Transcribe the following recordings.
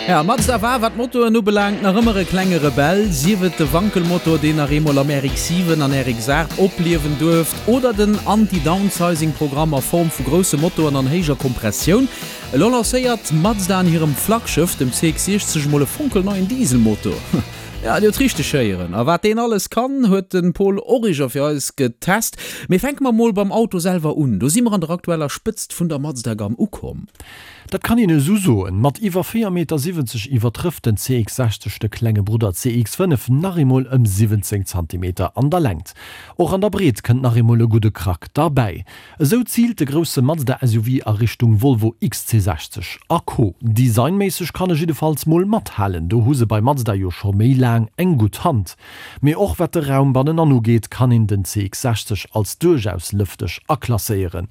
Ja, Mazda war, wat d'Motoren ubelaangt, nach ëmmer e klenge Rebell, sief et de Wankelmotor, deen nach eemol am RX-7 an RX-8 opliewen duerft, oder den Anti-Downsizing-Programm a Form vu grousse Motoren an héijer Kompressioun. Elo lancéiert Mazda an hirem Flaggschëff, dem CX-60, mol e fonkelneien Dieselmotor. Ja, Dir hutt richteg héieren. A wat deen alles kann, huet de Paul Origer fir eis getest. Mee fänke mer mol beim Auto selwer un. Do si mer an der aktueller Spëtzt vun der Mazda-Gamm ukomm. Dat kann een esou soen. Mat iwwer 4,70 Meter iwwertrëfft den CX-60 de klenge Brudder CX-5 nach eemol ëm 17 Zantimeter an der Längt. Och an der Breet kënnt nach eemol e gudde Krack derbäi. Esou ziilt de grousse Mazda SUV a Richtung Volvo XC60 a Co. Designméisseg kann e jiddefalls mol mathalen, do hu se bei Mazda jo scho méi laang eng gutt Hand. Mee och wat de Raum bannenan ugeet, kann een den CX-60 als duerchaus lëfteg aklasséieren.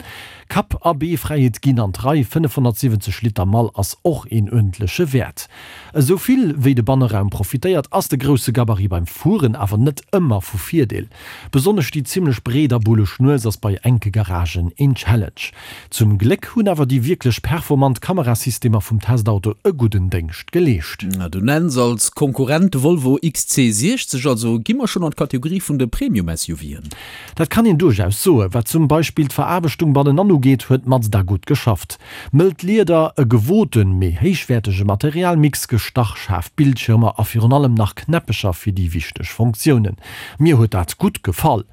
Kapp a Bee-Fräiheet ginn an d'Rei, 570 Liter Mall ass och een uerdentleche Wäert. Esou vill wéi de Banneraum profitéiert, ass de grousse Gabarit beim Fueren awer net ëmmer vu Virdeel. Besonnesch déi zimmlech breet a bulleg Nues ass bei enke Garagen een Challenge. Zum Gléck hunn awer déi wierklech performant Kamerasystemer vum Testauto e gudden Déngscht geleescht. Du nenns als Konkurrent de Volvo XC60, also gi mer schonn an d'Kategorie vun de Premium-SUVen. Dat kann een duerchaus soen. Wat zum Beispill d'Veraarbechtung bannenan ugeet, huet Mazda gutt geschafft. Mëllt Lieder, e gewoten, mee héichwäertege Materialmix, gestach schaarf Bildschirmer a virun allem nach Knäppecher fir déi wichteg Funktiounen. Mir huet dat gutt gefall.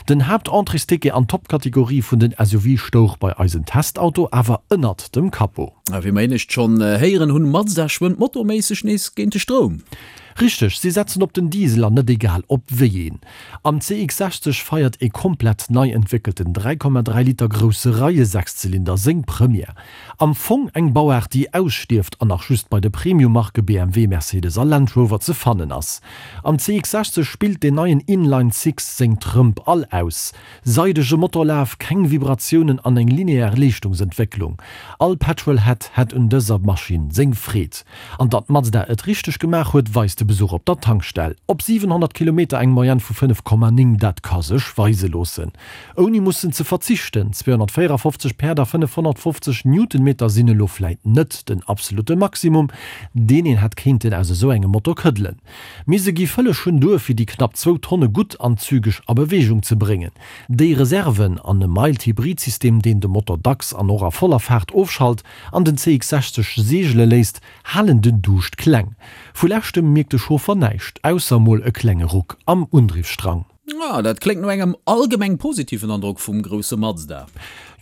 Den Haaptentréesticket an d'Topkategorie vun den SUV stouch bei eisen Testauto awer ënnert dem Capot. A wéi mer éinescht schonn héieren hunn, Mazda schwëmmt motorméisseg nees géint de Stroum. Richteg, si setzen op den Diesel an net egal op wéi een. Am CX-60 feiert ee komplett nei entwéckelten 3,3 Liter grousse Reie-Sechszylinder seng Première. Am Fong eng Bauaart déi ausstierft an nach just bei de Premium-Marke BMW, Mercedes a Land Rover ze fannen ass. Am CX-60 spillt deen neien Inline-Six seng Trëmp all aus. Seidege Motorlaf, keng Vibratiounen an eng linear Leeschtungsentwécklung. All Petrolhead hätt un dëser Maschinn seng Freed. An datt Mazda et richteg gemaach huet, weist de Besuch op der Tankstell. Op 700 Kilometer eng Moyenne vu 5,9, dat ka sech weise loossen. Ouni mussen ze verzichten. 254 Päerd a 550 Newtonmeter sinn elo vläit net den absolutte Maximum, deen een hätt kéinten aus esou engem Motor këddelen. Mee se gi vëlleg schonn duer, fir déi knapp zwou Tonne gutt an zügeg a Beweegung ze bréngen. Déi Reserven an e Mild-Hybrid-System, deen de Motor dacks an och a voller Faart ofschalt an den CX-60 seegele léisst, halen den Duuscht kleng. Vu leschtem mierkt de Chauffer näischt, ausser mol e klenge Ruck am Undriffsstrang. Ah, dat kléngt no engem allgemeng positiven Androck vum grousse Mazda.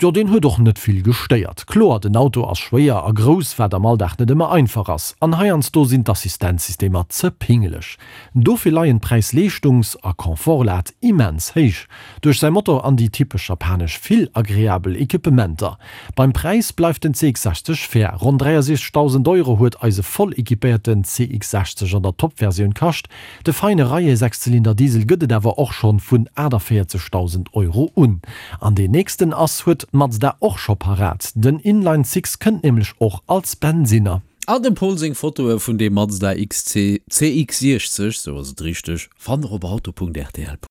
Jo, deen huet och net vill gestéiert. Kloer, den Auto ass schwéier a grouss, wat am Alldag net ëmmer einfach ass. An heiansdo sinn d'Assistenzsystemer ze pingeleg. Dofir leien d'Präis-Leeschtungs a Confort-Lat immens héich. Duerch säi Motor an déi typesch japanesch vill agreabel Equipementer. Beim Präis bleift den CX-60 fair, ronn 63.000 Euro huet eise voll equipéierten CX-60 an der Top-Versioun kascht. De feine Reie-Sechszylinder Diesel gëtt et awer och schonn vun 48.000 Euro un. An deen nächsten ass huet Mazda och scho parat, den Inline Six kënnt nämlech och als Bensinner. An dem Paul seng Fotoe vun deem Mazda XC CX-60, sou ass et richteg, fannt der op auto.rtl.lu.